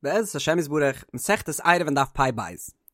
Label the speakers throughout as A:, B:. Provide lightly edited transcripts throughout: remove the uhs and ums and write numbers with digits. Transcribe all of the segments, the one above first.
A: בעזרת השם יתברך, מסכת עירובין דף פ"ב.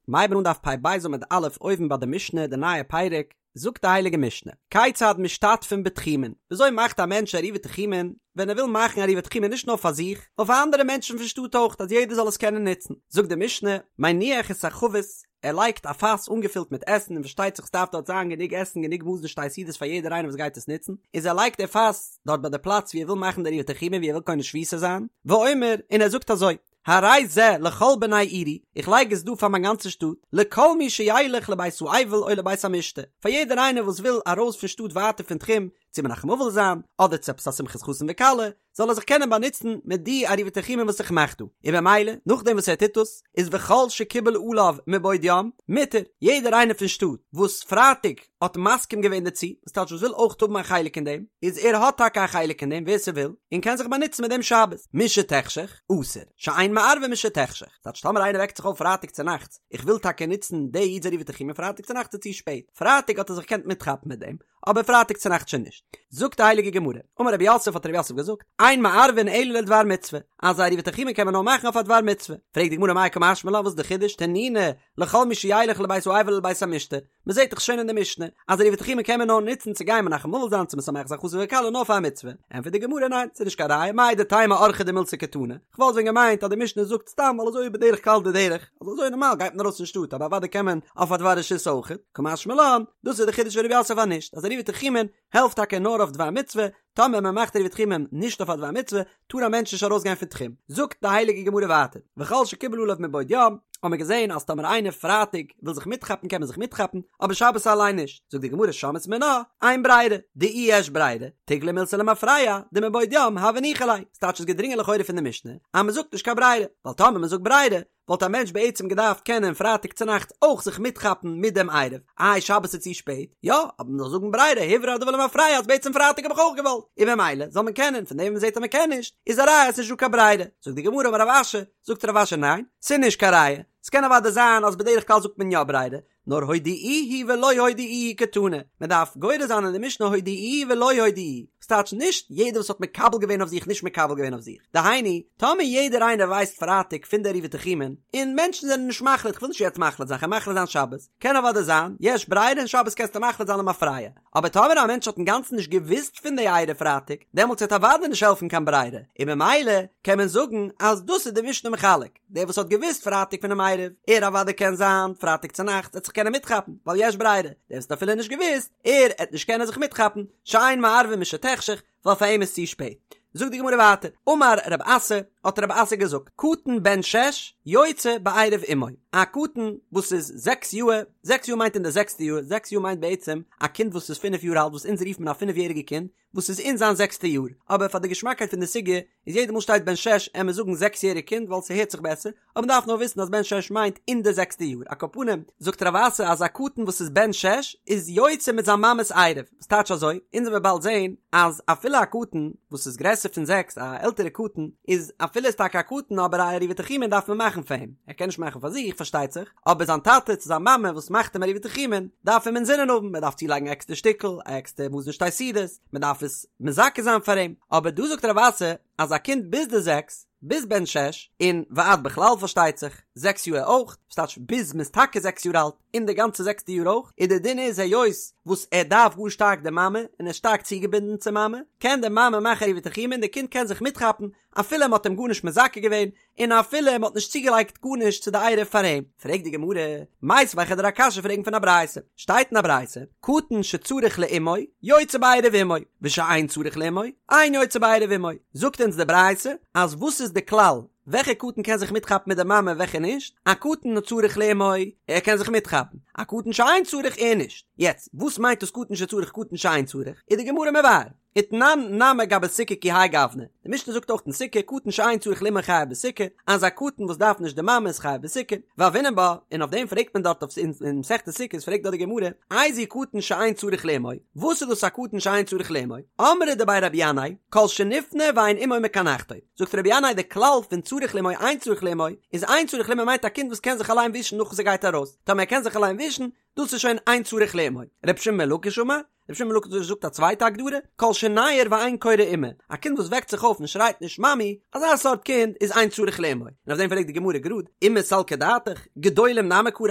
A: מ'הייבן אן דף פ"ב עמוד א' אויבן ביי די משנה די נייע פרק, זאגט די הייליגע משנה, כיצד משתתפין בתחומין, וויאזוי מאכט א מענטש עירובי תחומין ווען ער וויל מאכן עירובי תחומין נישט נאר פאר זיך, נאר פאר אנדערע מענטשן פון שטאט אויך אז יעדער זאל עס קענען נוצן, זאגט די משנה, מניח את החבית, ער לייגט א פאס אנגעפילט מיט עסן און פארשטייט זיך ס'דארף דארט זיין גענוג עסן גענוג מזון שתי סעודות פאר יעדער איינער וואס גייט עס נוצן, איז ער לייגט די פאס דארט ביי די פלאץ ווי ער וויל מאכן די עירובי תחומין ווי ער וויל קונה שביתה זיין, ואומר, און ער זאגט אזוי, הרי זה לכל בני עירי, איך לייג עס דא פאר מיין גאנצע שטאט, לכל מי שילך לבית האבל או לבית המשתה, פאר יעדער איינער וואס וויל ארויס פון שטאט ווייטער פון תחום, צו מנחם אבל זיין, אדער צו עפעס א שמחת חתן וכלה, זאל ער זיך קענען באנוצן מיט די עירובי תחומין וואס איך מאך דא, און במילא, נאכדעם וואס ער טוט דאס, איז וכל שקיבל עליו מבעוד יום, מותר, יעדער איינער פון שטאט, וואס פרייטאג האט מסכים געווען דערצו, וואס טייטש וואס וויל אויך האבן א חלק אין דעם, איז ער האט טאקע א חלק אין דעם, ווער ס'וויל, און קען זיך באנוצן מיט דעם שבת, משתחשך, אסור, שאין מערבין משתחשך, טייטש טאמער איינער וועקט זיך אויף פרייטאג צונאכטס, איך וויל טאקע נוצן די איד'ס עירובי תחומין פרייטאג צונאכטס איז צו שפעט, פרייטאג האט ער זיך געקענט מיטכאפן מיט דעם, אבער פרייטאג צונאכטס שוין נישט. זאגט די הייליגע גמרא, אמר רב יוסף האט רב יוסף געזאגט, אין מערבין אלא לדבר מצוה, אז א עירובי תחומין קען מען נאר מאכן אויף א דבר מצוה. פרעגט די גמרא מאי קא משמע לן וואס איז די חידוש, תנינא, לכל מי שילך לבית האבל ולבית המשתה, מען זעט דאך שוין אין די משנה אז עירובי תחומין קען מען נאר נוצן צו גיין מנחם אבל זיין צו משמח זיין חתן וכלה נאר פאר א מצוה. ענטפערט די גמרא ניין, ס'איז נישט קיין ראיה, מהו דתימא אורחא דמילתא קתני, כ'וואלט ווען געמיינט אז די משנה זאגט סתם ווייל אזוי איז בדרך כלל די דרך, אז אזוי נארמאל גייט מען ארויס פון שטאט אבער אוודאי קען מען אויף א דבר רשות אויכעט, קא משמע לן, דאס איז די חידוש פון רב יוסף אז נישט, אז עירובי תחומין העלפט טאקע נאר אויף דבר מצוה, טאמער מען מאכט עירובי תחומין נישט אויף א דבר מצוה, טאר א מענטש נישט ארויס גיין פון תחום. זאגט די הייליגע גמרא ווייטער, וכל שקיבל עליו מבעוד יום, האט מען געזען אז טאמער איינער פרייטאג וויל זיך מיטכאפן קען מען זיך מיטכאפן, אבער שבת אליין נישט, זאגט די גמרא שמעת מינה, אין ברירה, דאי יש ברירה, תיגלי מילתא למפרע, דמבעוד יום הוה ניחא ליה, ס'טייטש איז געדרינגען לכאורה פון די משנה אז מ'זאגט נישט קיין ברירה, ווייל טאמער מ'זאגט ברירה וואלט א מענטש בעצם געדארפט קענען פרייטאג צונאכטס אויך זיך מיטכאפן מיט דעם עירוב, איי שבת איז צו שפעט? יא, אבער מ'זאל זאגן ברירה הוברר הדבר למפרע אז בעצם פרייטאג האב איך אויך געוואלט, און במילא זאל מען קענען, פון דעם וואס מ'זעט אז מ'קען נישט, איז א ראיה אז ס'נישט דא קיין ברירה, זאגט די גמרא אמר רב אשי, זאגט רב אשי ניין, ס'איז נישט קיין ראיה, ס'קען אוודאי זיין אז בדרך כלל זאגט מען יא ברירה, נאר הודיעוהו ולא הודיעוהו קתני, מען דארף גורס זיין אין די משנה הודיעוהו ולא הודיעוהו, וואס טייטש נישט יעדער וואס האט מקבל געווען אויף זיך נישט מקבל געווען אויף זיך, דהיינו, טאמער יעדער איינער ווייסט פרייטאג פון די עירובי תחומין, און מענטשן זענען נישט מחליט כ'וויל נישט יעצט מחליט זיין כ'וועל מחליט זיין שבת, קען אוודאי זיין, יש ברירה און שבת קענסטו מחליט זיין למפרע, אבער טאמער א מענטש האט אינגאנצן נישט געוואוסט פון די עירוב פרייטאג, דעמאלטס וועט אוודאי נישט העלפן קיין ברירה, און ממילא קען מען זאגן אז דאס איז די משנה מחלק. דער וואס האט געוואוסט פרייטאג פונעם עירוב, ער אוודאי קען זיין פרייטאג צונאכטס עט זיך קענען מיטכאפן, ווייל יש ברירה, דער וואס האט אפילו נישט געוואוסט, ער עט נישט קענען זיך מיטכאפן, שאין מערבין משתחשך, ווייל פאר אים איז צו שפעט. זאגט די גמרא ווייטער, אמר רב אסי, האט רב אסי געזאגט, קטן בן שש יוצא בעירוב אמו, א קטן וואס איז זעקס יאהר, זעקס יאר מיינט אין די זעקסטע יאר, זעקס יאר מיינט בעצם א קינד וואס איז פינף יאר אלט וואס אונז רופט מען א פינף יעריגע קינד, וואס איז אין זיין זעקסטע יאר, אבער פאר די געשמאקייט פון די סוגיא איז יעדע מאל שטייט בן שש עמער זאגן זעקס יעריג קינד ווייל ס'הערט זיך בעסער, אבער מ'דארף נאר וויסן אז בן שש מיינט אין די זעקסטע יאר, על כל פנים זאגט רב אסי אז א קטן וואס איז בן שש איז יוצא מיט זיין מאמע'ס עירוב, וואס טייטש אזוי? אונז וועמיר באלד זעהן אז אפילו א קטן וואס איז גרעסער פון זעקס א עלטערע קטן איז אפילו איז טאקע א קטן אבער א עירובי תחומין דארף מען מאכן פאר אים, ער קען נישט מאכן פאר זיך פארשטייט זיך, אבער זיין טאטע צו זיין מאמע וואס מאכט אים עירובי תחומין דארף אים אינזינען האבן, מען דארף צולייגן א עקסטער שטיקל, א עקסטער מזון שתי סעודות, מען דארף עס מזכה זיין פאר אים, אבער דא זאגט רב אסי אז א קינד ביז די זעקס, ביז בן שש, און ועד בכלל פארשטייט זיך, זעקס יאר אויך, וואס טייטש ביז מען איז טאקע זעקס יאר אלט, און די גאנצע זעקסטע יאר אויך, און די דין איז היות וואס ער דארף גאר שטארק די מאמע, און ער איז שטארק צוגעבינדן צום מאמע, קען די מאמע מאכן עירובי תחומין און די קינד קען זיך מיטכאפן אפילו מען האט אים גארנישט מזכה געווען, און אפילו מען האט נישט צוגעלייגט גארנישט צו די עירוב פאר אים. פרעגט די גמרא, מיתיבי כ'וועל דיר א קשיא פרעגן פון א ברייתא, שטייט אין א ברייתא, קטן שצריך לאמו, יוצא בעירוב אמו, ושאין צריך לאמו, אין יוצא בעירוב אמו, זאגט אונז די ברייתא, אז וואס איז די כלל, וועלכע קטן קען זיך מיטכאפן מיט די מאמע און וועלכע נישט, א קטן הצריך לאמו, ער קען זיך מיטכאפן, א קטן שאין צריך ער נישט, יעצט, וואס מיינט דאס קטן שצריך קטן שאין צריך, איז די גמרא מבאר. ותנן נמי גבי סוכה כי האי גוונא, די משנה זאגט אויך אין סוכה קטן שאין צריך לאמו חייב בסוכה, אז א קטן וואס דארף נישט די מאמע איז חייב בסוכה, והוינן בה, און אויף דעם פרעגט מען דארט אויף אין מסכת סוכות פרעגט דארט די גמרא, איזהו קטן שאין צריך לאמו, וואס איז דאס א קטן שאין צריך לאמו, אמרי דבי רבי ינאי, כל שנפנה ואין אמו מקנחתו, זאגט רבי ינאי די כלל פון צריך לאמו אין צריך לאמו, איז אין צריך לאמו מיינט א קינד וואס קען זיך אליין ווישן נאך וואס ער גייט ארויס, טאמער ער קען זיך אליין ווישן, דאס איז שוין אין צריך לאמו. רבי שמעון בן לקיש אמר. רבי שמעון בן לקיש זאגט א צווייטע הגדרה, כל שניעור ואין קורא אימא, א קינד וואס וועקט זיך אויף און שרייט נישט מאמי, אזא סארט קינד איז אין צריך לאמו. און אויף דעם פרעגט די גמרא גראד, אימא סלקא דעתך, גדולים נמי קרו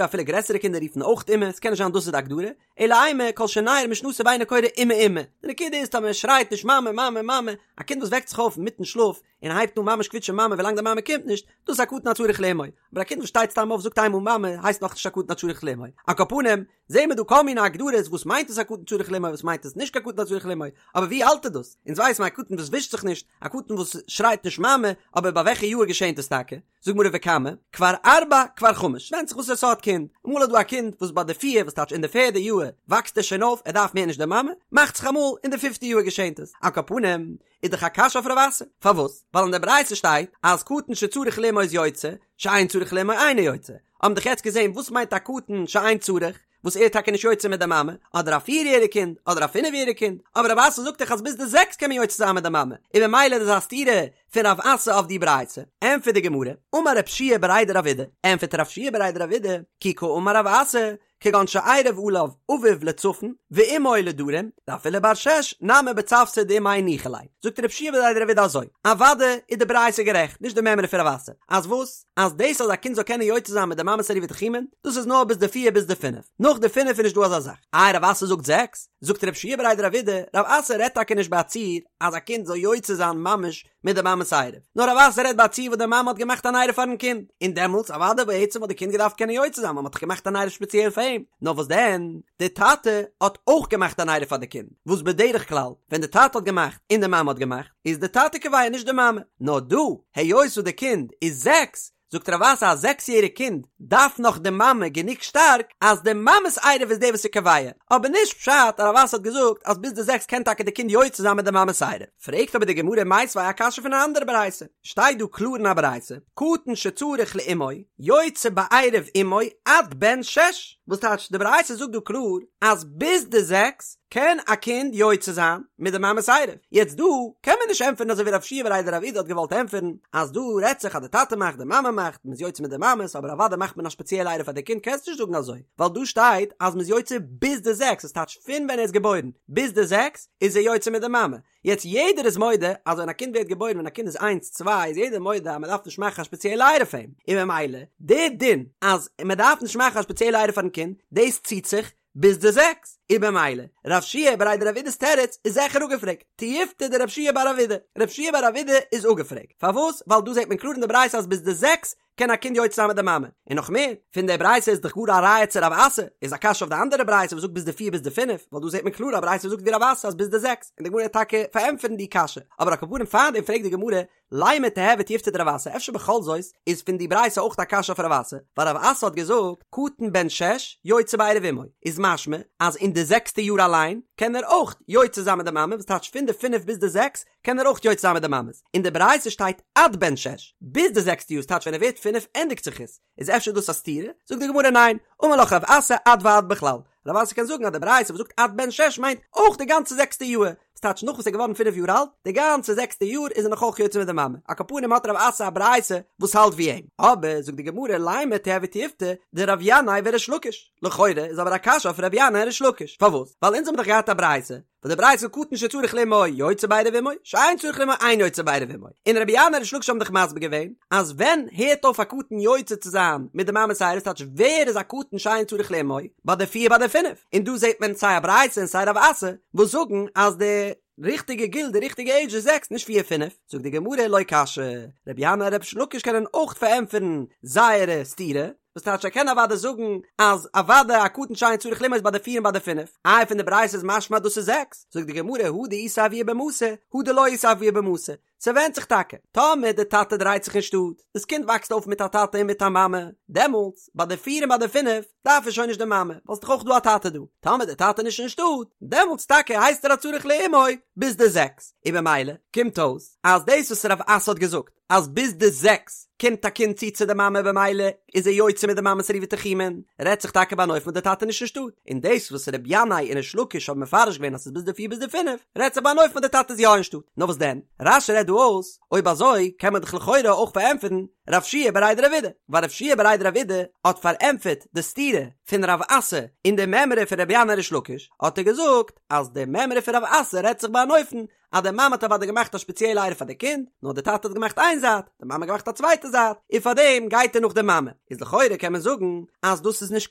A: אפילו גרעסערע קינדער רופן אויך אימא, ס'קען נישט זיין דאס איז די הגדרה, אלא אימא כל שניעור משנתו ואינו קורא אימא אימא, די נקודה איז טאמער ער שרייט נישט מאמע מאמע מאמע, א קינד וואס וועקט זיך אויף אינמיטן שלאף און הייבט אן ממש קוויטשען מאמע ווילאנג די מאמע קומט נישט, דאס איז א קטן הצריך לאמו, אבער א קינד וואס שטייט סתם אויף זאגט איינמאל מאמע הייסט נאכנישט א קטן הצריך לאמו, על כל פנים זעהן מיר דא כל מיני הגדרות וואס מיינט עס א קטן צריך לאמו וואס מיינט עס נישט קיין קטן הצריך לאמו, אבער ווי אלט איז דאס? אונז ווייסן א קטן וואס ווישט זיך נישט, א קטן וואס שרייט נישט מאמע, אבער ביי וועלכע יאהר געשענט עס טאקע? זאגט גמרא וכמה, כבר ארבע כבר חמש, ווענדט זיך וואסערע סארט קינד, אמאל איז דא א קינד וואס ביי די פיר, וואס טייטש אין די פערדע יאהר, וואקסט ער שוין אויף, ער דארף מער נישט די מאמע, מאכט זיך אמאל אין די פיפטע יאהר געשענט עס, על כל פנים, איז דאך א קשיא אויף רב אסי, פארוואס? ווייל אין די ברייתא שטייט אז קטן שצריך לאמו איז יוצא, שאין צריך לאמו אינו יוצא, האבן דאך יעצט געזען וואס מיינט א קטן שאין צריך, וואס ער איז טאקע נישט יוצא מיט די מאמע, אדער א פיר יעריג קינד, אדער א פינף יעריג קינד, אבער רב אסי זאגט דאך אז ביז די זעקס קען מען יוצא זיין מיט די מאמע, און ממילא איז דאס א סתירה פון רב אסי אויף די ברייתא. ענטפערט די גמרא, אמר רב שיע בריה דרב אידי, ענטפערט רב שיע בריה דרב אידי, כי קאמר רב אסי, כגון שעירב עליו אביו לצפון ואמו לדרום, דאפילו בר שש נמי בצוותא דאימיה ניחא ליה. זאגט רב שיע בריה דרב אידי אזוי, אוודאי איז די ברייתא גערעכט, נישט די מימרא פון רב אסי, אז וואס? אז דאס אז א קינד זאל קענען יוצא זיין מיט די מאמע'ס עירובי תחומין, דאס איז נאר ביז די פיר ביז די פינף, נאך די פינף איז נישט דא אזא זאך. איי רב אסי זאגט זעקס? זאגט רב שיע בריה דרב אידי, רב אסי רעדט טאקע נישט ביי א ציור אז א קינד זאל יוצא זיין ממש מיט די מאמע'ס עירוב, נאר רב אסי רעדט ביי א ציור וואס די מאמע האט געמאכט אן עירוב פארן קינד, און דעמאלטס אוודאי בעצם וואלט די קינד געדארפט קענען יוצא זיין ווייל מ'האט דאך געמאכט אן עירוב ספעציעל פאר אים, נאר וואס דען, די טאטע האט אויך געמאכט אן עירוב פאר די קינד, וואס בדרך כלל ווען די טאטע האט געמאכט און די מאמע האט געמאכט, איז די טאטע קובע נישט די מאמע, נאר דא, היות וואס די קינד איז זעקס, זאגט רב אסי א זעקס יעריג קינד דארף נאך די מאמע גענוג שטארק אז די מאמע'ס עירוב איז די וואס איז קובע, אבער נישט פשט אז רב אסי האט געזאגט אז ביז די זעקס קען טאקע די קינד יוצא זיין מיט די מאמע'ס עירוב. פרעגט אבער די גמרא מיתיבי א קשיא פון א אנדערע ברייתא, שטייט דא קלאר אין א ברייתא, קטן שצריך לאמו יוצא בעירוב אמו עד בן שש, וואס טייטש די ברייתא זאגט דא קלאר אז ביז די זעקס קען א קינד יוצא זיין מיט די מאמע'ס עירוב? יעצט דא קען מען נישט ענטפערן אזוי ווי רב שיע בריה דרב אידי האט געוואלט ענטפערן אז דא רעדט זיך אז די טאטע מאכט די מאמע מאכט מ'איז יוצא מיט די מאמע'ס אבער אוודאי מאכט מען א ספעציעלע עירוב פאר די קינד קענסט נישט זאגן אזוי ווייל דא שטייט אז מ'איז יוצא ביז די זעקס עס טייטש פון ווען ער איז געבוירן ביז די זעקס איז ער יוצא מיט די מאמע יעצט יעדער איז מודה אז ווען א קינד ווערט געבוירן ווען א קינד איז איינס צוויי איז יעדער מודה אז מ'דארף נישט מאכן א ספעציעלע עירוב פאר אים און ממילא די דין אז מ'דארף נישט מאכן א ספעציעלע עירוב פארן קינד דאס ציט זיך ביז די זעקס, און במילא, רב שיע בריה דרב אידי'ס תירוץ איז זעכער אפגעפרעגט, תיובתא דרב שיע בר רב אידי, רב שיע בר רב אידי איז אפגעפרעגט, פארוואס? ווייל דא זעט מען קלאר אין די ברייתא אז ביז די זעקס קען א קינד יוצא זיין מיט די מאמע, און נאך מער, פון די ברייתא איז דאך גאר א ראיה צו רב אסי, איז א קשיא אויף די אנדערע ברייתא וואס זאגט ביז די פיר ביז די פינף, ווייל דא זעט מען קלאר א ברייתא וואס זאגט ווי רב אסי אז ביז די זעקס, און די גמרא וועט טאקע פארענטפערן די קשיא, אבער על כל פנים פארדעם פרעגט די גמרא, לימא תיהוי תיובתא דרב אסי, אפשר בכל זאת איז פון די ברייתא אויך א קשיא אויף רב אסי, ווייל רב אסי האט געזאגט קטן בן שש יוצא בעירוב אמו, איז משמע אז אין די זעקסטע יאר אליין קען ער אויך יוצא זיין מיט די מאמע, וואס טייטש פון די פינף ביז די זעקס קען ער אויך יוצא זיין מיט די מאמעס, אין די ברייתא שטייט עד בן שש, ביז די זעקסטע יאר, ס'טייטש ווען ער ווערט פינף ענדיגט זיך עס, איז אפשר דאס א סתירה? זאגט די גמרא ניין, אמר לך רב אסי עד ועד בכלל, רב אסי קען זאגן אז די ברייתא וואס זאגט עד בן שש מיינט אויך די גאנצע זעקסטע יאר, וואס טייטש נאך וואס ער איז געווארן פינף יאר אלט, די גאנצע זעקסטע יאר איז ער נאך אויך יוצא מיט די מאמע, על כל פנים האט רב אסי א ברייתא וואס האלט ווי אים, אבער זאגט די גמרא לימא תיהוי תיובתא דרב ינאי וריש לקיש, לכאורה איז אבער א קשיא אויף רב ינאי און ריש לקיש, פארוואס? ווייל אונז האבן דאך געהאט א ברייתא וואס די ברייתא זאגט קטן שצריך לאמו יוצא בעירוב אמו, שאין צריך לאמו אין יוצא בעירוב אמו, און רבי ינאי און ריש לקיש האבן דאך מסביר געווען אז ווען הערט אויף א קטן יוצא צו זיין מיט די מאמע'ס עירוב ס'טייטש ווער איז א קטן שאין צריך לאמו ביי די פיר ביי די פינף, און דא זעט מען סיי א ברייתא און סיי רב אסי וואס זאגן אז די ריכטיגע גיל די ריכטיגע עידזש איז זעקס נישט פיר פינף, זאגט די גמרא לא קשיא, רבי ינאי און ריש לקיש קענען אויך פארענטפערן זייערע סתירה, וואס טייטש ער קען אוודאי זאגן אז אוודאי א קטן שאין צריך לאמו איז ביי די פיר און ביי די פינף, איי פון די ברייתא איז משמע אז דאס איז זעקס, זאגט די גמרא הא דאיתיה אבוה במתא, הא דלא איתיה אבוה במתא, ס'ווענדט זיך טאקע, טאמער די טאטע דרייט זיך אין שטאט, דאס קינד וואקסט אויף מיט א טאטע און מיט א מאמע, דעמאלטס ביי די פיר און ביי די פינף דארף ער שוין נישט די מאמע, ווייל ס'דאך אויך דא א טאטע דא, טאמער די טאטע איז נישט אין שטאט, דעמאלטס טאקע הייסט ער א צריך לאמו ביז די זעקס, און במילא קומט אויס אז דאס וואס רב אסי האט געזאגט, אז ביז די זעקס קומט א קינד צו צו די מאמע במילא איז ער יוצא מיט די מאמע'ס עירובי תחומין, רעדט זיך טאקע ביי אן אופן וואס די טאטע איז נישט אין שטאט, און דאס וואס ר' ינאי און ריש לקיש האבן מפרש געווען אז ס'איז ביז די פיר ביז די פינף, רעדט זיך ביי אן אופן וואס די טאטע איז יא אין שטאט. נאר וואס דען? רש"י רעדט דא. דא אויס, אויב אזוי קען מען דאך לכאורה אויך פארענטפערן רב שיע בריה דרב אידי, ווייל רב שיע בריה דרב אידי האט פארענטפערט די סתירה פון רב אסי אין די מימרא פון רבי ינאי ריש לקיש, האט ער געזאגט אז די מימרא פון רב אסי רעדט זיך ביי אן אופן אז די מאמע האט אוודאי געמאכט א שפעציעלע עירוב פאר די קינד, נאר די טאטע האט געמאכט איין זייט, די מאמע האט געמאכט א צווייטע זייט, און פארדעם גייט ער נאך די מאמע. איז לכאורה קען מען זאגן אז דאס איז נישט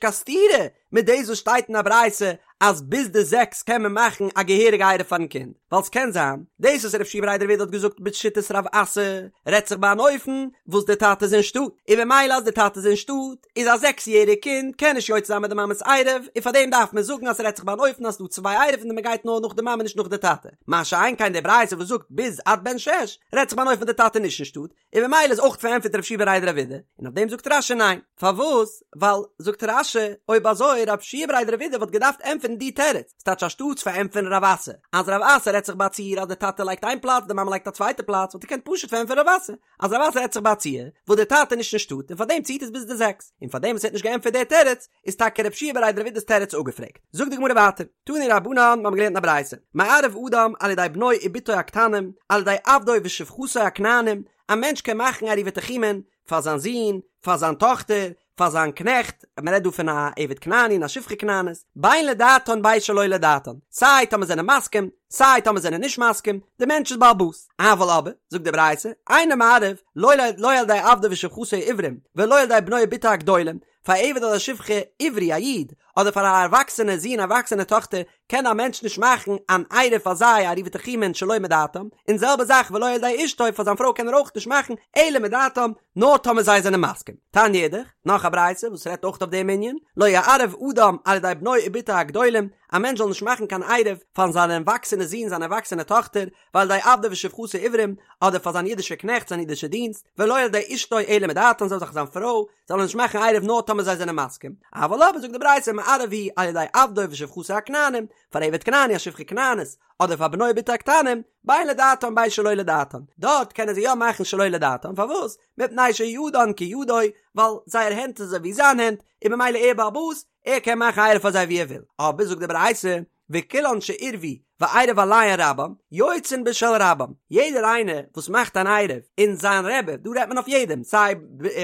A: קיין סתירה מיט דאס וואס שטייט אין א ברייתא אז ביז די זעקס קען מען מאכן א געהעריגע עירוב פארן קינד, ווייל ס'קען זיין דאס וואס רב שיע בריה דרב אידי האט געזאגט בשיטת רב אסי רעדט זיך ביי אן אופן וואס די טאטע איז אין שטאט, און במילא אז די טאטע איז אין שטאט איז א זעקס יעריג קינד קען נישט יוצא זיין מיט די מאמע'ס עירוב, און פארדעם דארף מען זאגן אז ס'רעדט זיך ביי אן אופן אז ס'דא צוויי עירובין און מ'גייט נאר נאך די מאמע נישט נאך די טאטע, מה שאין כן די ברייתא וואס זאגט ביז עד בן שש רעדט זיך ביי אן אופן די טאטע נישט אין שטאט, און במילא איז אויך פארענטפערט רב שיע בריה דרב אידי, און אויף דעם זאגט רש"י ניין, פארוואס? ווייל, זאגט רש"י, אויב אזוי רב שיע בריה דרב אידי וואלט געדארפט ענטפערן די תירוץ, ס'טייטש אנשטאטס פארענטפערן רב אסי, אז רב אסי רעדט זיך ביי א ציור אז די טאטע לייגט איין פלאץ די מאמע לייגט א צווייטע פלאץ וואלט ער געקענט פשוט פארענטפערן רב אסי, אז רב אסי רעדט זיך ביי א ציור וואס די טאטע איז נישט אין שטאט און פארדעם ציט עס ביז די זעקס, און פארדעם וואס ער האט נישט געענטפערט די תירוץ איז טאקע רב שיע בריה דרב אידי'ס תירוץ אפגעפרעגט. זאגט די גמרא ווייטער, תנו רבנן, מיר האבן געלערנט אין א ברייתא, מערב אדם על ידי בנו ובתו הקטנים, על ידי עבדו ושפחתו הכנענים, א מענטש קען מאכן עירובי תחומין פאר זיין זון, פאר זיין טאכטער, פאר זיין קנעכט, מען רעדט דא פון א עבד כנעני און א שפחה כנענית, בין לדעתן בין שלא לדעתן, סיי טאמער זענען מסכים, סיי טאמער זענען נישט מסכים, די מענטש איז בעל הבית. אבל אבער, זאגט די ברייתא, אינו מערב, לא לא על ידי עבדו ושפחתו העברים, ולא על ידי בנו ובתו הגדולים, פאר א עבד אדער שפחה עברי א איד, אדער פאר א ערוואקסענע זון ערוואקסענע טאכטער, קען א מענטש נישט מאכן אן עירוב פאר זיי א עירובי תחומין שלא מדעתם, און זעלבע זאך ולא על ידי אשתו פאר זיין פרוי קען ער אויך נישט מאכן אלא מדעתם, נאר טאמער זיי זענען מסכים. תניא אידך, נאך א ברייתא וואס רעדט אויך אויף דעם ענין, לא יערב אדם על ידי בנו ובתו הגדולים, א מענטש זאל נישט מאכן קיין עירוב פאר זיין ערוואקסענע זון זיין ערוואקסענע טאכטער, ועל ידי עבדו ושפחתו העברים, אדער פאר זיין אידישע קנעכט זיין אידישע דינסט, ולא על ידי אשתו אלא מדעתם זעלבע זאך זיין פרוי, זאל ער נישט מאכן עירוב נאר טאמער זיי זענען מסכים, אבל אבער זאגט די ברייתא מערב הוא על ידי עבדו ושפחתו הכנענים, פאר עבד כנעני א שפחה כנענית, אדער פאר בנו ובתו הקטנים, בין לדעתם בין שלא לדעתם, דארט קענען זיי יא מאכן שלא לדעתם, פארוואס? מפני שידן כידו, ווייל זייער הענט איז אזוי ווי זיין הענט, און ממילא ער בעל הבית, ער קען מאכן עירוב פאר זיי ווי ער וויל, אבער זאגט די ברייתא, וכולן שעירבו ועירב עליהן רבן, יוצאין בשל רבן, יעדער איינער וואס מאכט אן עירוב און זיין רבי, דא רעדט מען אויף יעדעם, סיי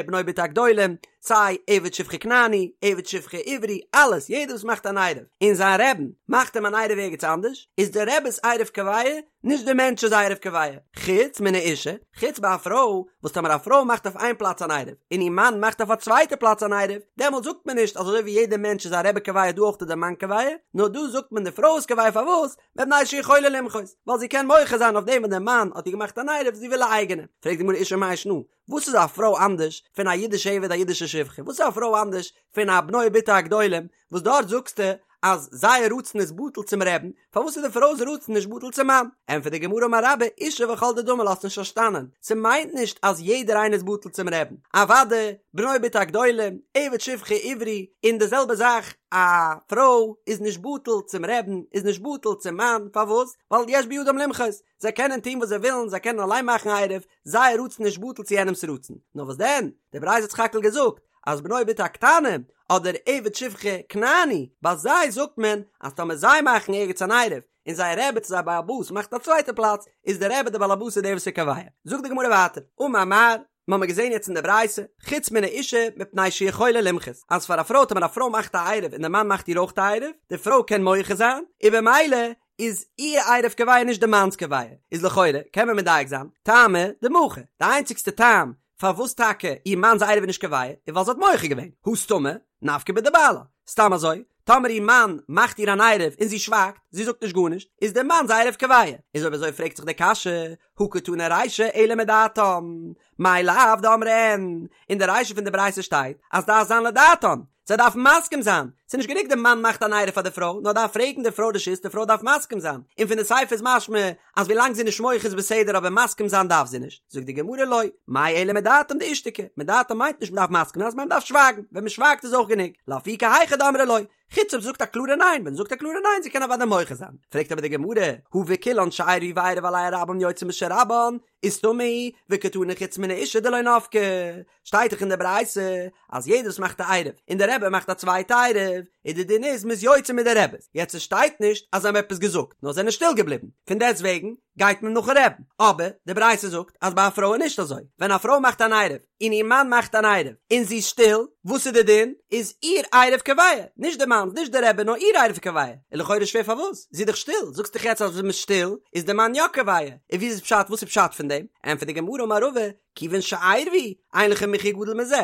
A: בנו ובתו הגדולים, סיי עבד שפחה כנעני, עבד שפחה עברי, אלעס, יעדער וואס מאכט אן עירוב און זיין רבי'ן מאכט אים אן עירוב ערגעץ אנדערש, איז דער רבי'ס עירוב קובע, נישט דער מענטש'ס עירוב קובע, חוץ מן האישה, חוץ ביי א פרוי, וואס טאמער א פרוי מאכט אויף איין פלאץ אן עירוב, און איר מאן מאכט אויף א צווייטע פלאץ אן עירוב, דעמאלט זאגט מען נישט אז אזוי ווי יעדער מענטש איז א רבי קובע דא אויך איז דער מאן קובע, נאר דא זאגט מען די פרוי איז קובע פארוואס? מפני שיכולה למחות, ווייל זי קען מוחה זיין אויף דעם וואס דער מאן האט איר געמאכט אן עירוב, זי וויל א אייגענע. פרעגט די גמרא אישה מאי שנא, וואס איז א פרוי אנדערש פון א אידישע עבד א אידישע שפחה? וואס איז א פרוי אנדערש פון א בנו ובתו הגדולים וואס דארט זאגסטו אז זייער רצון איז בטל צום רבי'ן, פארוואס איז די פרוי'ס רצון נישט בטל צום מאן? ענטפערט די גמרא אמר רבה, אישה וכל דדמי לה, האסט נישט פארשטאנען, ס'מיינט נישט אז יעדער איינער איז בטל צום רבי'ן, אוודאי בנו ובתו הגדולים, עבד שפחה עברי, און די זעלבע זאך א פרוי איז נישט בטל צום רבי'ן, איז נישט בטל צום מאן, פארוואס? ווייל יש בידם למחות, זיי קענען טון וואס זיי ווילן, זיי קענען אליין מאכן עירוב, זייער רצון איז נישט בטל צו יענעמ'ס רצון. נאר וואס דען? די ברייתא האט סך הכל געזאגט אז בנו ובתו הקטנים, אדער עבד שפחה כנעני, ביי זיי זאגט מען אז טאמער זיי מאכן ערגעץ אן עירוב, און זייער רבי צו זייער בעל הבית מאכט א צווייטע פלאץ, איז דער רבי דער בעל הבית איז דער וואס איז קובע. זאגט די גמרא ווייטער, אמר מר, מ'האמיר געזען יעצט אין די ברייתא, חוץ מן האישה מפני שיכולה למחות, אז פאר א פרוי טאמער א פרוי מאכט א עירוב און דער מאן מאכט איר אויך א עירוב, די פרוי קען מוחה זיין, און במילא איז איר עירוב קובע נישט די מאנ'ס קובע, איז לכאורה קען מען מדייק זיין, טעמא דמחי, די איינציגסטע טעם פארוואס טאקע איר מאנ'ס עירוב איז נישט קובע איז ווייל זי האט מוחה געווען, הא סתמא, נפקא בדבעלה, סתם אזוי, טאמער איר מאן מאכט איר אן עירוב און זי שווייגט, זי זאגט נישט גארנישט, איז דער מאנ'ס עירוב קובע, איז אויב אזוי פרעגט זיך די קשיא, הא קתני רישא אלא מדעתם, מאי לאו דאמרי אין, אין די רישא פון די ברייתא שטייט אז דארף זיין לדעתם, זיי דארפן מסכים זיין, ס'איז נישט גענוג די מאן מאכט אן עירוב פאר די פרוי, נאר דארף פרעגן די פרוי רשות, די פרוי דארף מסכים זיין, און פון די סיפא איז משמע אז ווילאנג זי איז נישט מוחה איז בסדר אבער מסכים זיין דארף זי נישט, זאגט די גמרא לא, מאי אלא מדעתם דאישתיקו, מדעתם מיינט נישט מ'דארף מסכים זיין, ס'מיינט מ'דארף שווייגן, ווען מ'שווייגט איז אויך גענוג, לאפוקי היכא דאמרי לא, חוץ אויב זי זאגט א קלארע ניין, ווען זי זאגט א קלארע ניין זי קען אוודאי מוחה זיין, פרעגט אבער די גמרא, הא וכולן שעירבו ועירב עליהן רבן יוצאין בשל רבן, וסתמא היא וקתני חוץ מן האישה דלא נפקא, שטייט דאך אין די ברייתא אז יעדער וואס מאכט א עירוב און די רבי מאכט א צווייטע עירוב. עירוב, איז די דין איז מ'איז יוצא מיט די רבי'ס, יעצט עס שטייט נישט אז זיי האבן עפעס געזאגט, נאר זענען שטיל געבליבן, פון דעסט וועגן גייט מען נאכן רבי'ן, אבער די ברייתא זאגט אז ביי א פרוי איז נישט אזוי, ווען א פרוי מאכט אן עירוב און איר מאן מאכט אן עירוב און זי איז שטיל, וואס איז די דין? איז איר עירוב קובע, נישט די מאנ'ס, נישט די רבי, נאר איר עירוב קובע, איז לכאורה שווער פארוואס? זי איז דאך שטיל, זאגסט דאך יעצט אז ווען מ'איז שטיל איז די מאן יא קובע, און ווי איז פשט וואס איז פשט פון דעם? ענטפערט די גמרא אמר רבא, כיוון שעירבו, אין לך מחיה גדול מזה.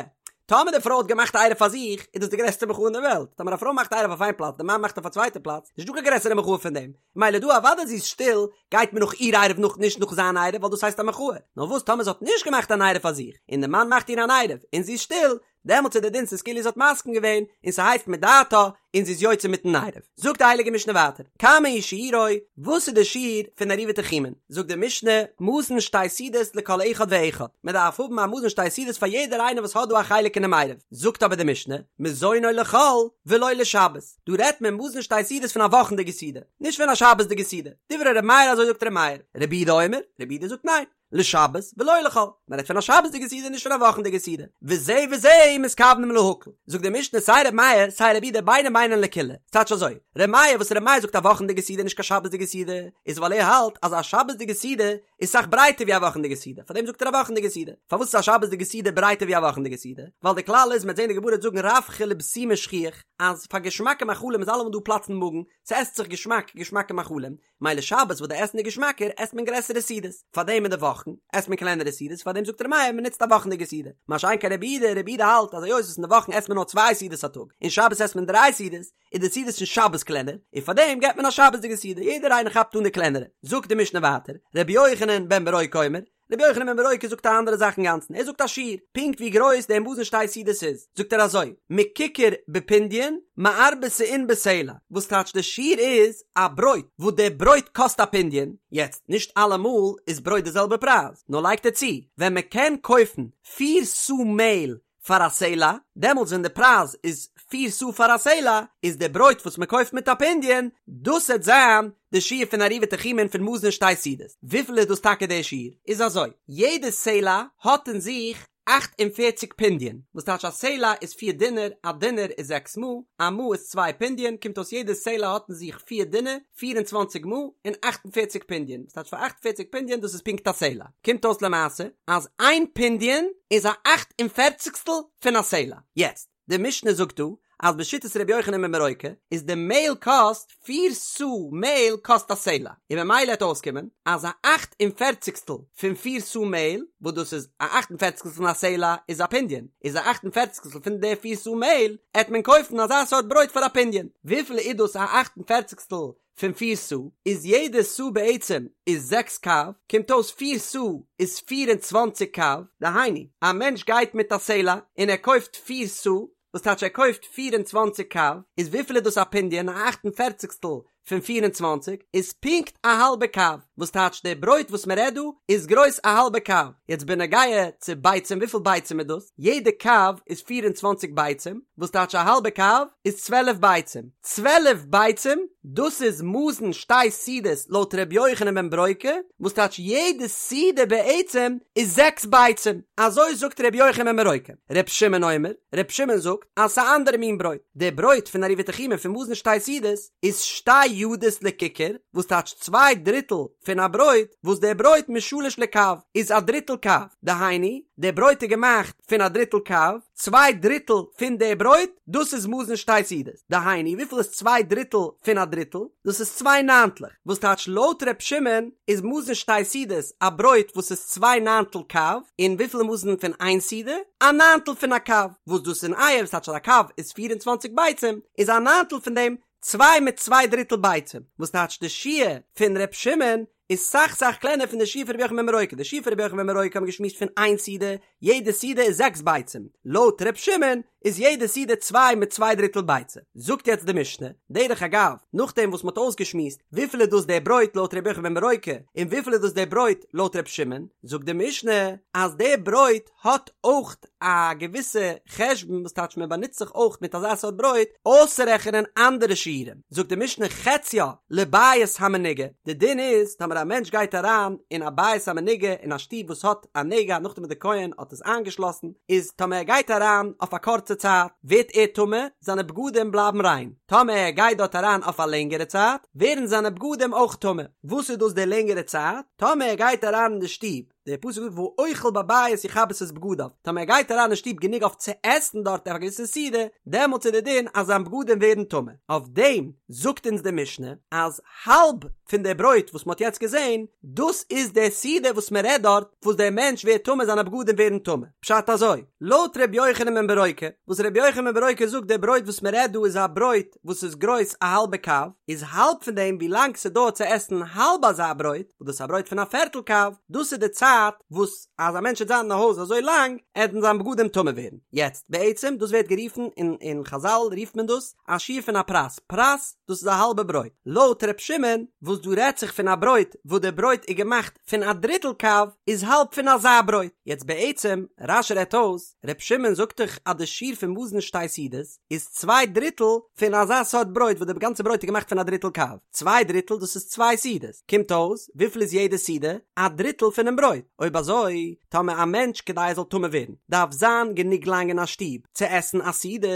A: טאמער די פרוי האט געמאכט א עירוב פאר זיך, איז דאס די גרעסטע מחאה אין די וועלט. טאמער א פרוי מאכט א עירוב אויף איין פלאץ, די מאן מאכט אויף א צווייטע פלאץ, נישט דא קיין גרעסערע מחאה פון דעם. מילא דא אוודאי זי איז שטיל, גייט מען נאך איר עירוב נאך נישט נאך זיין עירוב, ווייל דאס הייסט א מחאה. נאר וואס טאמער זי האט נישט געמאכט אן עירוב פאר זיך, און די מאן מאכט איר אן עירוב, און זי איז שטיל, דעמאלטס איז די דין ס'איז כאילו זי האט מסכים געווען, און ס'הייסט מדעתה, און זי איז יוצא מיטן עירוב. זאגט די הייליגע משנה ווייטער, כמה הוא שיעורו, וואס איז די שיעור פון עירובי תחומין? זאגט די משנה, מזון שתי סעודות לכל אחד ואחד, מען דארף האבן א מזון שתי סעודות פאר יעדער איינער וואס האט דא א חלק אינעם עירוב. זאגט אבער די משנה, מזונו לחול ולא לשבת, דא רעדט מען מזון שתי סעודות פון א וואכנדיגע סעודה, נישט פון א שבת'דיגע סעודה. דברי ר' מאיר אזוי זאגט ר' מאיר, רבי יהודה אומר, רבי יהודה זאגט ניין. לשבת ולא לחול, מען רעדט פון א שבת'דיגע סעודה נישט פון א וואכנדיגע סעודה, וזה וזה מתכוונים להקל, זאגט די משנה סיי ר' מאיר סיי רבי יהודה ביידע מיינען לקולא, ס'טייטש אזוי, ר' מאיר וואס ר' מאיר זאגט א וואכנדיגע סעודה נישט קיין שבת'דיגע סעודה, איז ווייל ער האלט אז א שבת'דיגע סעודה איז סאך ברייטער ווי א וואכנדיגע סעודה, פארדעם זאגט ער א וואכנדיגע סעודה, פארוואס איז א שבת'דיגע סעודה ברייטער ווי א וואכנדיגע סעודה? ווייל די כלל איז מ'עט זען די גמרא וועט זאגן רווחא לבסימא שכיח, אז פאר געשמאקע מאכלים איז אלעמאל דא פלאץ אין מאגן, ס'עסט זיך געשמאק געשמאקע מאכלים, מילא שבת וואס די עסן איז געשמאקער עסט מען גרעסערע סעודות, פארדעם אין די וואכן עסט מען קלענערע סעודות פארדעם זאגט ר' מאיר מען נוצט א וואכנדיגע סעודה, מה שאין כן רבי יהודה, רבי יהודה האלט אז היות וואס אין די וואכן עסט מען נאר צוויי סעודות א טאג און שבת עסט מען דריי סעודות, איז די סעודות פון שבת קלענער, און פארדעם געבט מען א שבת'דיגע סעודה, יעדער איינער כאפט אן די קלענערע. זאגט די משנה ווייטער, רבי יוחנן בן ברוקה אומר, רבי יוחנן בן ברוקה זאגט א אנדערע זאך אינגאנצן, ער זאגט א שיעור, פונקט ווי גרויס דער מזון שתי סעודות איז, זאגט ער אזוי, מככר בפונדיון, מארבע סאין בסלע, וואס טייטש די שיעור איז א ברויט, וואס דער ברויט קאסט א פונדיון, יעצט, נישט אלעמאל איז ברויט די זעלבע פרייז, נאר לייגט ער צו, ווען מען קען קויפן פיר סאה מעהל פאר א סלע, דעמאלטס ווען די פרייז איז פיר סאה פאר א סלע, איז די ברויט וואס מען קויפט מיט א פונדיון, דאס העט זיין די שיעור פון עירובי תחומין פון מזון שתי סעודות. וויפיל איז דאס טאקע די שיעור? איז אזוי, יעדע סלע האט אין זיך 48 פונדיון, וואס טייטש א סלע איז פיר דינר, א דינר איז זעקס מעה, א מעה איז צוויי פונדיון, קומט אויס יעדע סלע האט אין זיך פיר דינר, 24 מעה און 48 פונדיון, וואס טייטש פאר 48 פונדיון דאס איז פונקט א סלע. קומט אויס למעשה אז איין פונדיון איז א אכט און פערציגסטל פון א סלע. יעצט, די משנה זאגט דא אז בשיטת ר' יוחנן בן ברוקה איז די מעהל קאסט פיר סאה מעהל קאסט א סלע, און ממילא העט אויסקומען אז א אכט און פערציגסטל פון פיר סאה מעהל, וואס דאס איז א אכט און פערציגסטל פון א סלע איז א פונדיון, איז א אכט און פערציגסטל פון די פיר סאה מעהל העט מען קויפן אזא סארט ברויט פאר א פונדיון. וויפיל איז דאס א אכט און פערציגסטל פון פיר סאה איז יעדע סאה בעצם איז זעקס קב, קומט אויס פיר סאה איז 24 קב, דהיינו א מענטש גייט מיט א סלע און ער קויפט פיר סאה, וואס טייטש ער קויפט 24 קב, איז וויפיל איז דאס א פונדיון, א אכט און פערציגסטל פון 24 איז פונקט א האלבע קב, וואס טייטש די ברויט וואס מען רעדט דא איז גרויס א האלבע קב, יעצט בנוגע צו ביצים וויפיל ביצים איז דאס? יעדע קב איז 24 ביצים, וואס טייטש א האלבע קב איז 12 ביצים, 12 ביצים דאס איז מזון שתי סעודות לויט ר' יוחנן בן ברוקה, וואס טייטש יעדע סעודה בעצם איז זעקס ביצים, אזוי זאגט ר' יוחנן בן ברוקה, ר' שמעון אומר, ר' שמעון זאגט אז ס'איז א אנדערע מין ברויט, די ברויט פון עירובי תחומין פון מזון שתי סעודות איז שתי ידות לככר, וואס טייטש צוויי דריטל פון א ברויט, וואס דער ברויט משלש לקב איז א דריטל קב, דהיינו, דער ברויט איז געמאכט פון א דריטל קב, צוויי דריטל פון דער ברויט, דאס איז מזון שתי סעודות, דהיינו, וויפיל איז צוויי דריטל פון א דריטל? דאס איז צוויי ניינטלעך, וואס טייטש לויט ר' שמעון איז מזון שתי סעודות א ברויט וואס איז צוויי ניינטל קב, און וויפיל איז מזון פון איין סעודה? א ניינטל פון א קב, וואס דאס אין אייער, וואס טייטש אז א קב איז פיר און צוואנציג ביצים, איז א ניינטל פון דעם צוויי מיט צוויי דריטל ביצים, וואס טייטש די שיעור פון ר' שמעון איז סאך סאך קלענער פון די שיעור פון רבי יוחנן בן ברוקה, די שיעור פון רבי יוחנן בן ברוקה האבן געשמועסט פון איין סעודה, יעדע סעודה איז זעקס ביצים, לויט ר' שמעון איז יעדע סעודה צוויי מיט צוויי דריטל ביצה. זאגט יעצט די משנה, דרך אגב, נאכדעם וואס מ'האט אויסגעשמועסט וויפיל איז דאס דער ברויט לויט רבי יוחנן בן ברוקה און וויפיל איז דאס דער ברויט לויט ר' שמעון, זאגט די משנה אז דער ברויט האט אויך א געוויסע חשבון וואס טייטש מען באנוצט זיך אויך מיט אזא סארט ברויט אויסצורעכענען אנדערע שיעורים, זאגט די משנה חציה לבית המנוגע, די דין איז טאמער טאמער א מענטש גייט אריין אין א בית המנוגע אין א שטוב וואס האט א נגע נאכדעם וואס די כהן האט עס איינגעשלאסן, איז טאמער ער גייט אריין אויף א קורצע צייט ווערט ער טמא, זיינע בגדים בלייבן ריין, טאמער ער גייט דארט אריין אויף א לענגערע צייט ווערן זיינע בגדים אויך טמא. וואס איז דאס די לענגערע צייט? טאמער ער גייט אריין אין די שטוב דער פסוק זאגט והאוכל בבית יכבס את בגדיו, טאמער ער גייט אריין אין שטוב גענוג אויף צו עסן דארט אויף א געוויסע סעודה, דעמאלטס איז דער דין אז זיין בגדים ווערן טמא. אויף דעם זאגט אונז די משנה אז האלב פון די ברויט וואס מען האט יעצט געזען, דאס איז די סעודה וואס מען רעדט דארט, וואס דער מענטש ווערט טמא זיינע בגדים ווערן טמא. פשט אזוי, לויט ר' יוחנן בן ברוקה, וואס ר' יוחנן בן ברוקה זאגט די ברויט וואס מען רעדט דא איז א ברויט וואס איז גרויס א האלבע קב, איז האלב פון דעם ווי לאנג ס'דויערט צו עסן האלב אזא ברויט, וואס דאס איז א ברויט פון א פערטל קב, דאס איז די צייט וואס אז א מענטש וועט זיין אין א הויז אזוי לאנג, עטן זיין בגדים טמא ווערן. יעצט, בעצם, דאס ווערט גערופן, אין אין חזל רופט מען דאס, א שיעור פון א פרס, פרס, דאס איז א האלבע ברויט. לויט ר' שמעון, וואס דא רעדט זיך פון א ברויט וואס די ברויט איז געמאכט פון א דריטל קב, איז האלב פון אזא ברויט. יעצט בעצם, רש"י רעדט אויס, ר' שמעון זאגט דאך אז די שיעור פון מזון שתי סעודות, איז צוויי דריטל פון אזא סארט ברויט וואס די גאנצע ברויט איז געמאכט פון א דריטל קב, צוויי דריטל דאס איז צוויי סעודות, קומט אויס וויפיל איז יעדע סעודה? א דריטל פונעם ברויט, אויב אזוי טאמער א מענטש כדי ער זאל טמא ווערן דארף זיין גענוג לאנג אין א שטוב צו עסן א סעודה,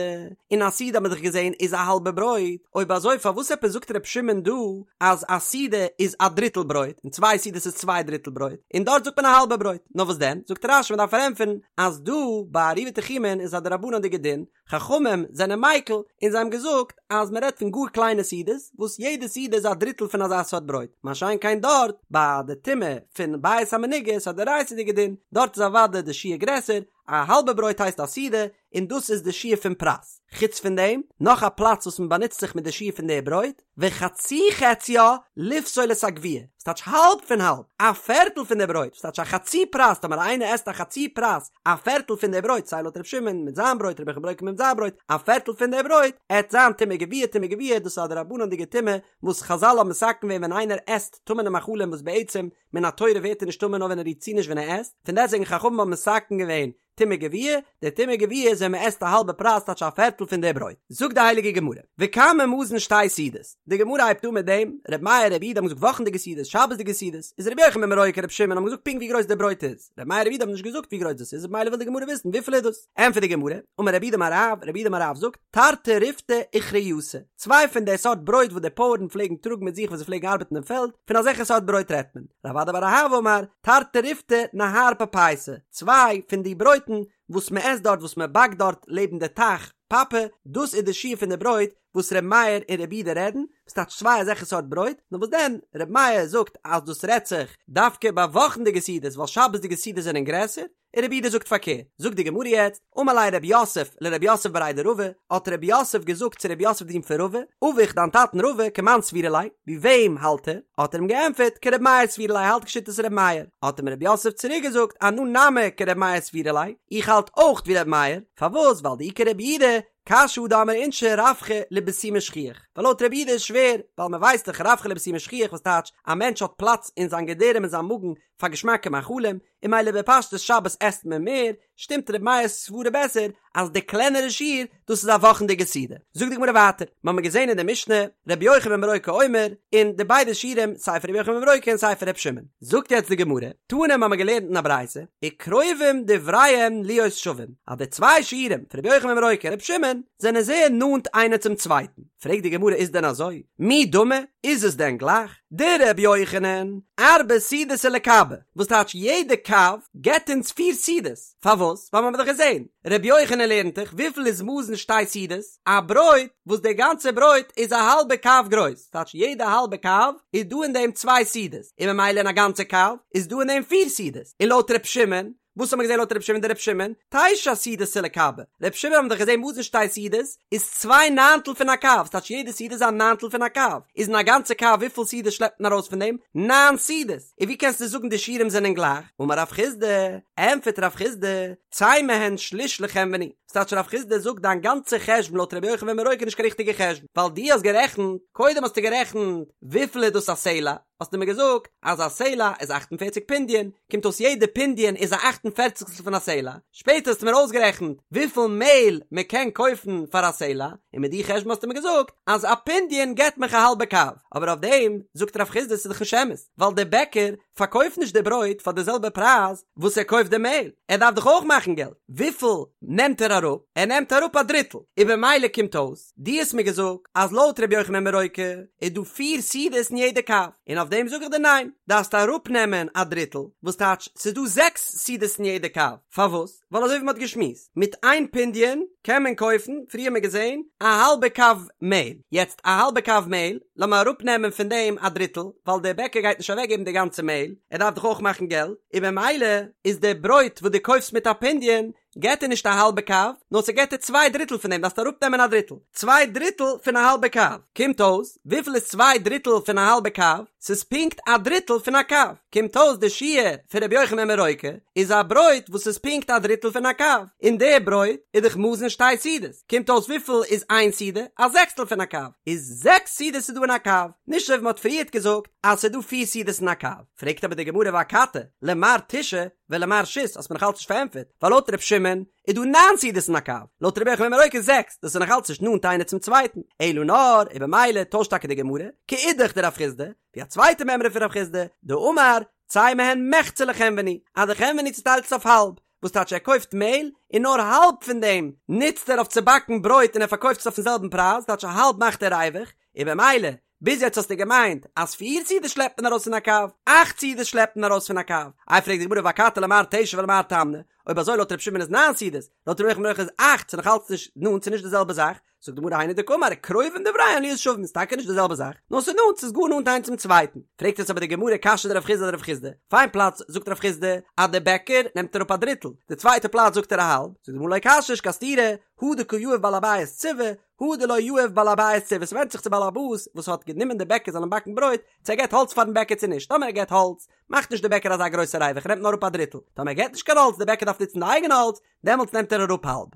A: און א סעודה האט מען דאך געזען איז א האלבע ברויט, אויב אזוי פארוואס עפעס זאגט ר' שמעון דא אז א סעודה איז א דריטל ברויט און צוויי סעודות איז צוויי דריטל ברויט און דארט זאגט מען א האלבע ברויט, נאר וואס דען זאגט רש"י מען דארף פארענטפערן אז דא ביי עירובי תחומין איז א דרבנן'דיגע דין חכמים זענען מיקל און זיי האבן געזאגט אז מען רעדט פון גאר קליינע סעודות וואס יעדע סעודה איז א דריטל פון אזא סארט ברויט, מה שאין כן דארט ביי די טומאה פון בית המנוגע איז א דאורייתא'דיגע דין, דארט איז אוודאי די שיעור גרעסער, א האלבע ברויט הייסט א סעודה און דאס איז די שיעור פון פרס. חוץ פון דעם, נאך א פלאץ וואס מען באנוצט זיך מיט די שיעור פון די ברויט, וחצי חציה לפסול את הגווייה, וואס טייטש האלב פון האלב, א פערטל פון די ברויט, וואס טייטש א חצי פרס, טאמער איינער עסט א חצי פרס, א פערטל פון די ברויט, סיי לויט ר' שמעון מיט זיין ברויט, רבי יוחנן בן ברוקה מיט זיין ברויט, א פערטל פון די ברויט, עט זיין טומאה גווייה, טומאה גווייה, דאס איז א דרבנן'דיגע טומאה, וואס חזל האבן מתקן געווען ווען איינער עסט טמא'נע מאכלים וואס בעצם מן התורה ווערט ער נישט טמא נאר ווען ער רירט צו נישט ווען ער עסט, פון דעסטוועגן חכמים האבן מתקן געווען טומאה גווייה, די טומאה גווייה איז ווען מען עסט א האלבע פרס טייטש א פערטל פון די ברויט. זאגט די הייליגע גמרא, וכמה מזון שתי סעודות, די גמרא הייבט אן מיט דעם, ר' מאיר ר' יהודה האבן געזאגט וואכנדיגע סעודות, שבת'דיגע סעודות, איז ר' יוחנן בן ברוקה ר' שמעון האבן געזאגט פונקט ווי גרויס די ברויט איז, ר' מאיר ר' יהודה האבן נישט געזאגט ווי גרויס דאס איז, ממילא וויל די גמרא וויסן וויפיל איז דאס, ענטפערט די גמרא, אמר רב יהודה אמר רב, רב יהודה אמר רב זאגט, תרתי ריפתי אוכריתא, צוויי פון די סארט ברויט וואס די פויערן פלעגן טראגן מיט זיך ווען זיי פלעגן ארבעטן אין פעלד, פון אזעלכע סארט ברויט רעדט מען. רב אדא בר אהבה אמר, תרתי ריפתי נהר פפייסא, צוויי פון די ברויטן וואס מען עסט דארט וואס מען באקט דארט לעבן די טייך פאפע, דאס איז די שיעור פון די ברויט וואס ר' מאיר און ר' יהודה רעדן, וואס טייטש צוויי אזעלכע סארט ברויט, נאר וואס דען ר' מאיר זאגט אז דאס רעדט זיך דווקא ביי וואכנדיגע סעודות ווייל שבת'דיגע סעודות זענען גרעסער, און רבי יהודה זאגט פארקערט, זאגט די גמרא יעצט, אמר ליה רב יוסף לרב יוסף בריה דרבא, האט רב יוסף געזאגט צו רב יוסף די זון פון רבא, אבוך דיין טאטן רבא כמאן סבירא ליה, ווי וועם האלט ער? האט ער אים געענטפערט, כרבי מאיר סבירא ליה האלט כשיטת רבי מאיר, האט אים רב יוסף צוריק געזאגט, אנא נמי כרבי מאיר סבירא לי, איך האלט אויך ווי רבי מאיר, פארוואס ווייל דאי כרבי יהודה, קשיא הא דאמרי אינשי רווחא לבסומי שכיח, ווייל לויט רבי יהודה איז שווער, ווייל מען ווייסט דאך רווחא לבסומי שכיח וואס טייטש א מענטש האט פלאץ אין זיין געדערים אין זיין מאגן פאר געשמאקע מאכלים, און ממילא בפשטות שבת עסט מען מער, שטימט ר' מאיר'ס סברה בעסער אז די קלענערע שיעור דאס איז א וואכנדיגע סעודה. זאגט די גמרא ווייטער, מ'האמיר געזען אין די משנה ר' יוחנן בן ברוקה אומר, אין די ביידע שיעורים סיי פון ר' יוחנן בן ברוקה און סיי פון ר' שמעון. זאגט יעצט די גמרא, תנא מ'האמיר געלערנט אין א ברייתא, וקרובים דבריהם להיות שווים, אז די צוויי שיעורים פון ר' יוחנן בן ברוקה און ר' שמעון זענען זייער נאנט איינער צום צווייטן. פרעגט די גמרא איז דען אזוי? מי דמי? איז עס דען גלייך? דרבי יוחנן, ארבע סעודתא לקבא, וואס טייטש יעדע קב געבט אונז פיר סעודות, פארוואס? ווייל מ'האט דאך געזען, רבי יוחנן לערנט דאך וויפיל איז מזון שתי סעודות, א ברויט וואס די גאנצע ברויט איז א האלבע קב גרויס, טייטש יעדע האלבע קב איז דא אין דעם צוויי סעודות, און ממילא אין א גאנצע קב איז דא אין דעם פיר סעודות, און לויט ר' שמעון וואס האט מען געזען לויט ר' שמעון דר' שמעון? תשע סעודתא לקבא. ר' שמעון האבן דאך געזען מזון שתי סעודות איז צוויי ניינטל פון א קב, ס'טייטש יעדע סעודה איז א ניינטל פון א קב, איז אין א גאנצע קב וויפיל סעודות שלעפט מען ארויס פון דעם? ניין סעודות! און ווי קענסטו זאגן די שיעורים זענען גלייך? אמר רב חסדא, ענטפערט רב חסדא, צא מהן שליש לחנווני, ס'טייטש רב חסדא זאגט דיין גאנצע חשבון לויט ר' יוחנן בן ברוקה איז נישט קיין ריכטיגע חשבון, ווייל דו האסט גערעכנט, קודם האסטו גערעכנט וויפיל איז דאס א סלע, האסטו מיר געזאגט אז א סלע איז אַכט און פֿערציק פונדיון, קומט אויס יעדע פונדיון איז א אַכט. און פערציגסטל פון א סלע, שפעטער האסטו מיר אויסגערעכנט וויפיל מעהל מען קען קויפן פאר א סלע, און מיט די חשבון האסטו מיר געזאגט אז א פונדיון געבט מיך א האלבע קב, אבער אויף דעם זאגט רב חסדא ס'איז דאך נישט אמת, ווייל דער בעקער פארקויפט נישט די ברויט פאר די זעלבע פרייז וואס ער קויפט די מעהל, ער דארף דאך אויך מאכן געלט, וויפיל נעמט ער אראפ? ער נעמט אראפ א דריטל, און במילא קומט אויס, דו האסט מיר געזאגט אז לויט ר' יוחנן בן ברוקה איז דא פיר סעודות אין יעדע קב, און אויף דעם זאג איך דיר ניין, דארפסט אראפנעמען א דריטל, וואס טייטש ס'איז דא זעקס סעודות אין יעדע קב, פארוואס? ווייל אזוי ווי מ'האט געשמועסט, מיט איין פונדיון קען מען קויפן, פריער האט מען געזען, א האלבע קב מעהל, יעצט א האלבע קב מעהל, לאמיר אראפנעמען פון דעם א דריטל, ווייל דער בעקער גייט נישט אוועקגעבן די גאנצע מעהל, ער דארף דאך אויך מאכן געלט, און במילא איז די ברויט וואס דו קויפסט מיט א פונדיון, געט דיר נישט א האלבע קב, נאר ס'געט דיר צוויי דריטל פון דעם, דארפסט אראפנעמען א דריטל. צוויי דריטל פון א האלבע קב. קומט אויס, וויפיל איז צוויי דריטל פון א האלבע קב? ס'איז פונקט א דריטל פון א קב. קומט אויס די שיעור פון רבי יוחנן בן ברוקה איז א ברויט וואס איז פונקט א דריטל פון א קב. און די ברויט איז דאך מזון שתי סעודות. קומט אויס וויפיל איז איין סעודה? א זעקסטל פון א קב. איז זעקס סעודות איז דא אין א קב. נישט אזוי ווי מ'האט פריערט געזאגט אז ס'איז דא פיר סעודות אין א קב. פרעגט אבער די גמרא ואכתי, למר תשעה, ולמר שית האסט מיר נאכאלץ נישט פארענטפערט, ווייל לויט ר' שמעון איז דא ניין סעודות אין א קב, לויט רבי יוחנן בן ברוקה זעקס, דאס איז נאכאלץ נישט נאנט איינער צום צווייטן, אלא נאר, און במילא טוישט טאקע די גמרא, כאידך דרב חסדא, ווי א צווייטע מימרא פון רב חסדא, דאמר, צא מהן מחצה לחנווני, אז די חנווני צוטיילט עס אויף האלב, וואס טייטש ער קויפט מעהל, און נאר האלב פון דעם נוצט ער אויף צו באקן ברויט און ער פארקויפט עס אויפן זעלבן פרייז, טייטש א האלב מאכט ער ריווח, און במילא ביז יעצט האסטו געמיינט אז פיר סעודות שלעפט מען ארויס פון א קב, אכט סעודות שלעפט מען ארויס פון א קב. איי פרעגט די גמרא ואכתי למר תשע ולמר תמני, אויב אזוי לויט ר' שמעון איז ניין סעודות, לויט ר' יוחנן בן ברוקה איז אכט, ס'איז נאך אלץ נישט נאנט, ס'איז נישט די זעלבע זאך, זאגט די גמרא היינו דקאמר קרובים דבריהן להיות שווים, ס'איז טאקע נישט די זעלבע זאך, נאר ס'איז נאנט, ס'איז גאר נאנט איינס צום צווייטן. פרעגט עס אבער די גמרא קשיא דרב חסדא אדרב חסדא, אויף איין פלאץ זאגט רב חסדא אז דער בעקער נעמט אראפ א דריטל, די צווייטע פלאץ זאגט ער א האלב, זאגט די גמרא לא קשיא נישט קיין סתירה, הא דקא יהיב בעל הבית ציבי, הא דלא יהיב בעל הבית ציבי, ס'ווענדט זיך צו בעל הבית וואס האט גענומען די בעקער זאלן באקן ברויט, צו ער געט האלץ פארן בעקער צו נישט, טאמער ער געט האלץ, מאכט נישט די בעקער אזא גרויסע ריווח ער נעמט נאר אראפ א דריטל, טאמער ער געט נישט קיין האלץ די בעקער דארף נוצן די אייגענע האלץ, דעמאלטס נעמט ער אראפ האלב.